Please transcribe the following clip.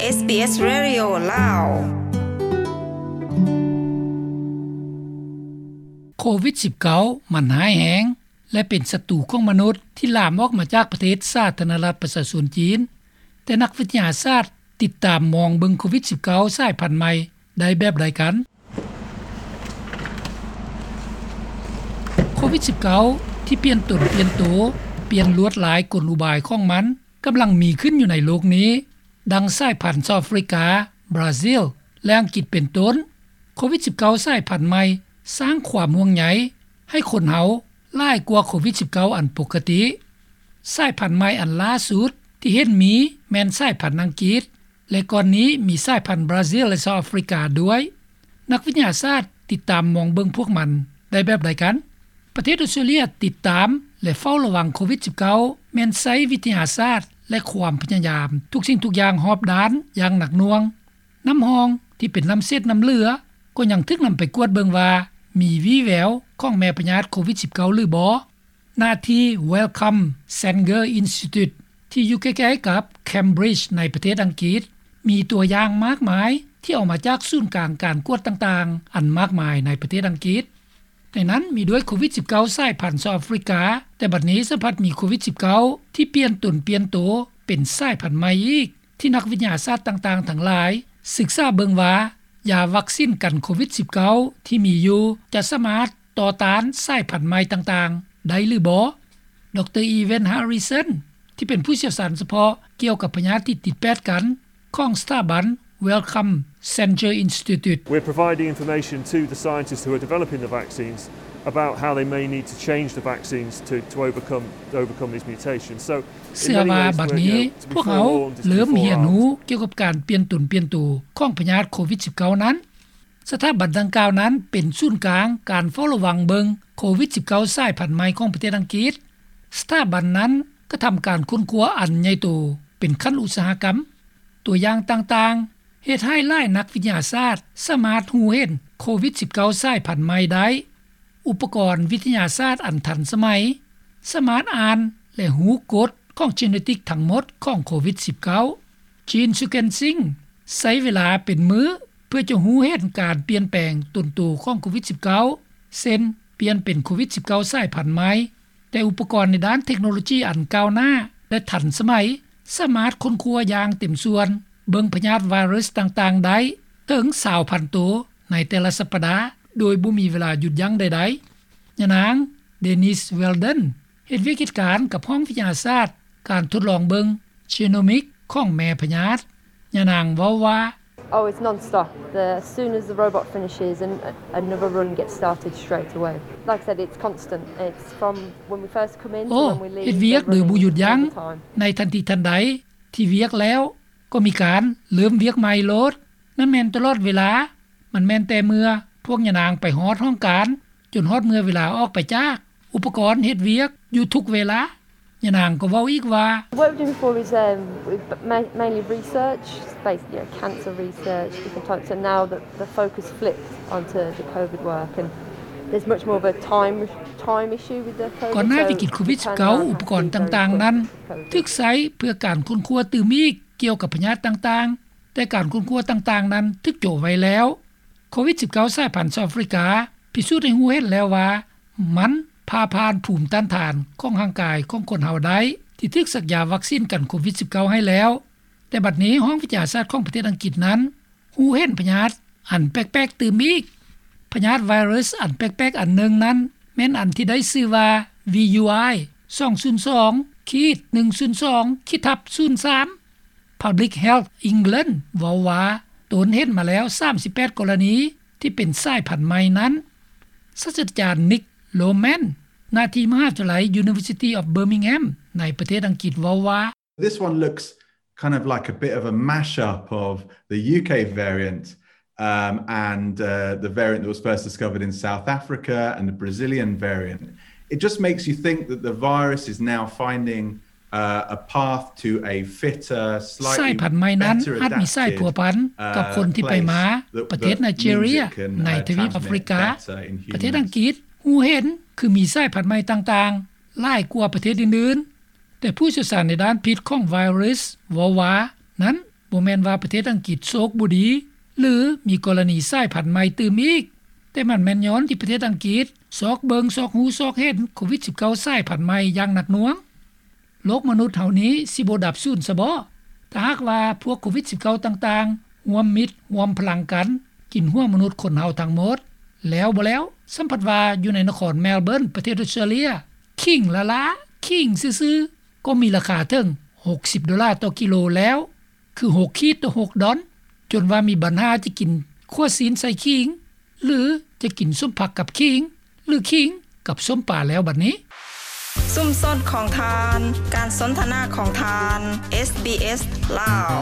ເອສບີເອສ Radio ລາວ. ໂຄວິດສິບເກົ້າ ມັນຮ້າຍແຮງ ແລະ ເປັນສັດຕູຂອງມະນຸດ ທີ່ລາມອອກມາຈາກປະເທດສາທາລະນະລັດປະຊາຊົນຈີນ. ແຕ່ນັກວິທະຍາສາດຕິດຕາມມອງເບິ່ງໂຄວິດສິບເກົ້າ ສາຍພັນໃໝ່ໄດ້ແບບໃດກັນ? ໂຄວິດສິບເກົ້າ ທີ່ປ່ຽນຕົນປ່ຽນໂຕ, ປ່ຽນລວດລາຍກົນອຸບາຍຂອງມັນ ກຳລັງມີຂຶ້ນຢູ່ໃນໂລກນີ້, ດັ່ງສາຍພັນເຊົາອາຟຣິກາ, ບຣາຊິລ ແລະ ອັງກິດເປັນຕົ້ນ. ໂຄວິດສິບເກົ້າ ສາຍພັນໃໝ່ສ້າງຄວາມຫ່ວງໃຍໃຫ້ຄົນເຮົາຫຼາຍກວ່າໂຄວິດສິບເກົ້າ ອັນປົກກະຕິ. ສາຍພັນໃໝ່ອັນລ່າສຸດທີ່ເຫັນມີແມ່ນສາຍພັນອັງກິດ ແລະ ກ່ອນນີ້ມີສາຍພັນບຣາຊິລ ແລະ ເຊົາອາຟຣິກາດ້ວຍ. ນັກວິທະຍາສາດຕິດຕາມມອງເບິ່ງພວກມັນໄດ້ແບບໃດກັນ? ປະເທດອອສເຕຣເລຍຕິດຕາມ ແລະ ເຝົ້າລະວັງໂຄວິດສິບເກົ້າ ແມ່ນໃຊ້ວິທະຍາສາດ ແລະ ຄວາມພະຍາຍາມທຸກສິ່ງທຸກຢ່າງຮອບດ້ານຢ່າງໜັກໜ່ວງ. ນ້ຳຮ່ອງທີ່ເປັນນ້ຳເສດນ້ຳເຫຼືອ ກໍຍັງຖືກນຳໄປກວດເບິ່ງວ່າມີວີ່ແວວຂອງແມ່ພະຍາດໂຄວິດສິບເກົ້າ ຫຼືບໍ່. ໜ້າທີ່ Wellcome Sanger Institute ທີ່ຢູ່ໃກ້ໆກັບ Cambridge ໃນປະເທດອັງກິດ ມີຕົວຢ່າງມາກມາຍທີ່ເອົາມາຈາກສູນກາງການກວດຕ່າງໆ ອັນມາກມາຍໃນປະເທດອັງກິດ. ໃນນັ້ນມີດ້ວຍໂຄວິດສິບເກົ້າ ສາຍພັນເຊົາອາຟຣິກາ, ແຕ່ບັດນີ້ສະພັດມີໂຄວິດສິບເກົ້າ ທີ່ປ່ຽນຕົນປ່ຽນໂຕເປັນສາຍພັນໃໝ່ອີກ ທີ່ນັກວິທະຍາສາດຕ່າງໆທັງຫຼາຍສຶກສາເບິ່ງວ່າ ຢາວັກຊິນກັນໂຄວິດສິບເກົ້າ ທີ່ມີຢູ່ຈະສາມາດຕໍ່ຕ້ານສາຍພັນໃໝ່ຕ່າງໆໄດ້ຫຼືບໍ່. ດຣ. Evan Harrison ທີ່ເປັນຜູ້ຊ່ຽວຊານສະເພາະກ່ຽວກັບພະຍາດທີ່ຕິດແປດກັນຂອງສະຖາບັນ Wellcome Sanger Institute. We're providing information to the scientists who are developing the vaccines about how they may need to change the vaccines to, to overcome, overcome these mutations. So ເຊື່ອວ່າບັດນີ້ພວກເຮົາເລີ່ມຮຽນຮູ້ກ່ຽວກັບການປ່ຽນຕົນປ່ຽນໂຕຂອງພະຍາດໂຄວິດສິບເກົ້ານັ້ນ. ສະຖາບັນດັ່ງກ່າວນັ້ນເປັນສູນກາງການເຝົ້າລະວັງເບິ່ງໂຄວິດສິບເກົ້າ ສາຍພັນໃໝ່ຂອງປະເທດອັງກິດ. ສະຖາບັນນັ້ນກະທຳການຄົ້ນຄວ້າອັນໃຫຍ່ໂຕເປັນຂັ້ນອຸດສາຫະກຳ. ຕົວຢ່າງຕ່າງໆ ເຮັດໃຫ້ຫຼາຍນັກວິທະຍາສາດສາມາດຮູ້ເຫັນໂຄວິດສິບເກົ້າ ສາຍພັນໃໝ່ໄດ້. ອຸປະກອນວິທະຍາສາດອັນທັນສະໄໝ ສາມາດອ່ານ ແລະ ຮູ້ກົດຂອງເຈເນຕິກທັງໝົດຂອງໂຄວິດສິບເກົ້າ. Jean Sukhensing ໃຊ້ເວລາເປັນມື້ເພື່ອຈະຮູ້ເຫັນການປ່ຽນແປງຕົນໂຕຂອງໂຄວິດສິບເກົ້າ ເຊັ່ນ ປ່ຽນເປັນໂຄວິດສິບເກົ້າ ສາຍພັນໃໝ່. ແຕ່ອຸປະກອນໃນດ້ານເທັກໂນໂລຈີອັນກ້າວໜ້າ ແລະ ທັນສະໄໝ ສາມາດຄົ້ນຄວ້າຢ່າງເຕັມສ່ວນ ເບິ່ງພະຍາດໄວຣັສຕ່າງໆໄດ້ເຖິງຊາວພັນໂຕໃນແຕ່ລະສັບປະດາ ໂດຍບໍ່ມີເວລາຢຸດຢັ້ງໃດໆ. ຍານາງ Denise Weldon ເຮັດວຽກເຮັດການກັບຫ້ອງວິທະຍາສາດການທົດລອງເບິ່ງ genomic ຂອງແມ່ພະຍາດ. ຍານາງເວົ້າວ່າ Oh, it's non-stop. The, as soon as the robot finishes, an, another run gets started straight away. Like I said, it's constant. It's from when we first come in to ໂອ້ when we leave. ເຮັດວຽກໂດຍບໍ່ຢຸດຢັ້ງ all the time. ໃນທັນທີທັນໃດທີ່ວຽກແລ້ວ ກໍມີການເລີ່ມວຽກໃໝ່ໂລດ. ນັ້ນແມ່ນຕະຫຼອດເວລາ. ມັນແມ່ນແຕ່ເມື່ອພວກຍານາງໄປຮອດຫ້ອງການ ຈົນຮອດເມື່ອເວລາອອກໄປຈາກ. ອຸປະກອນເຮັດວຽກຢູ່ທຸກເວລາ. ຍານາງກໍເວົ້າອີກວ່າ What we're doing before is, um, we ma-, mainly research, space, you know, cancer research, different types. And now the, the focus flipped onto the COVID work, and there's much more of a time, time issue with the COVID. ກ່ອນໜ້າວິກິດໂຄວິດສິບເກົ້າ ອຸປະກອນຕ່າງໆນັ້ນຖືກໃຊ້ເພື່ອການຄົ້ນຄວ້າຕື່ມອີກກ່ຽວກັບພະຍາດຕ່າງໆ, ແຕ່ການຄົ້ນຄວ້າຕ່າງໆນັ້ນຖືກໂຈະໄວ້ແລ້ວ. ໂຄວິດສິບເກົ້າ ສາຍພັນເຊົາອາຟຣິກາ ພິສູດໃຫ້ຮູ້ເຫັນແລ້ວວ່າ ມັນຜ່າຜ່ານພູມຕ້ານທານຂອງຮ່າງກາຍຂອງຄົນເຮົາໄດ້ ທີ່ຖືກສັກຢາວັກຊິນກັນໂຄວິດສິບເກົ້າໃຫ້ແລ້ວ. ແຕ່ບັດນີ້ຫ້ອງວິທະຍາສາດຂອງປະເທດອັງກິດນັ້ນ ຮູ້ເຫັນພະຍາດອັນແປກໆຕື່ມອີກ. ພະຍາດໄວຣັສອັນແປກໆອັນໜຶ່ງນັ້ນ ແມ່ນອັນທີ່ໄດ້ຊື່ວ່າ ວີຢູໄອ ສອງສູນສອງ ຂີດ ໜຶ່ງສູນສອງ ຂີດ ທັບ ສູນສາມ. Public Health England ເວົ້າວ່າ ຕົນເຫັນມາແລ້ວສາມສິບແປດກໍລະນີທີ່ເປັນສາຍພັນໃໝ່ນັ້ນ. ສາດສະດາຈານ Nick Loman ໜ້າທີ່ມະຫາວິທະຍາໄລ University of Birmingham ໃນປະເທດອັງກິດເວົ້າວ່າ This one looks kind of like a bit of a mash-up of the U K variant, um, and, uh, the variant that was first discovered in South Africa and the Brazilian variant. It just makes you think that the virus is now finding, uh, a path to a fitter, slightly better adapted, uh, place that, that means it can, uh, transmit better in the wider community. ສາຍພັນໃໝ່ນັ້ນອາດມີສາຍພົວພັນກັບຄົນທີ່ໄປມາປະເທດໄນເຈເຣຍ ໃນທະວີບອາຟຣິກາ. ປະເທດອັງກິດຮູ້ເຫັນຄືມີສາຍພັນໃໝ່ຕ່າງໆຫຼາຍກວ່າປະເທດອື່ນໆ. ແຕ່ຜູ້ຊ່ຽວຊານໃນດ້ານພິດຂອງໄວຣັສເວົ້າວ່າ ນັ້ນ ບໍ່ແມ່ນວ່າປະເທດອັງກິດໂຊກບໍ່ດີ ຫຼື ມີກໍລະນີສາຍພັນໃໝ່ຕື່ມອີກ, ແຕ່ມັນແມ່ນຍ້ອນທີ່ປະເທດອັງກິດຊອກເບິ່ງຊອກຮູ້ຊອກເຫັນໂຄວິດ-19 ສາຍພັນໃໝ່ຢ່າງໜັກໜ່ວງ. ໂລກມະນຸດເຮົານີ້ຊິບໍ່ດັບສູນຊະບໍ ຖ້າຫາກວ່າພວກໂຄວິດ-19 ຕ່າງໆ ຮ່ວມມິດຮ່ວມພະລັງກັນ ກິນຫົວມະນຸດຄົນເຮົາທັງໝົດ. ແລ້ວບໍ່ແລ້ວ ສ່ຳພັດວ່າຢູ່ໃນນະຄອນແມລເບີນ ປະເທດອົດສະຕຣາເລຍ ຂີງລ້າໆ ຂີງຊື່ໆ ກໍມີລາຄາເຖິງ ຫົກສິບໂດລາຕໍ່ກິໂລແລ້ວ, ຄື ຫົກຂີດຕໍ່ຫົກດອນ, ຈົນວ່າມີບັນຫາຈະກິນຂົ້ວຊີ້ນໃສ່ຂີງ ຫຼື ຈະກິນສົ້ມຜັກກັບຂີງ ຫຼື ຂີງກັບສົ້ມປາແລ້ວບັດນີ້. ຊຸມຊົນຂອງທ່ານ, ການສົນທະນາຂອງທ່ານ ເອສບີເອສ ລາວ.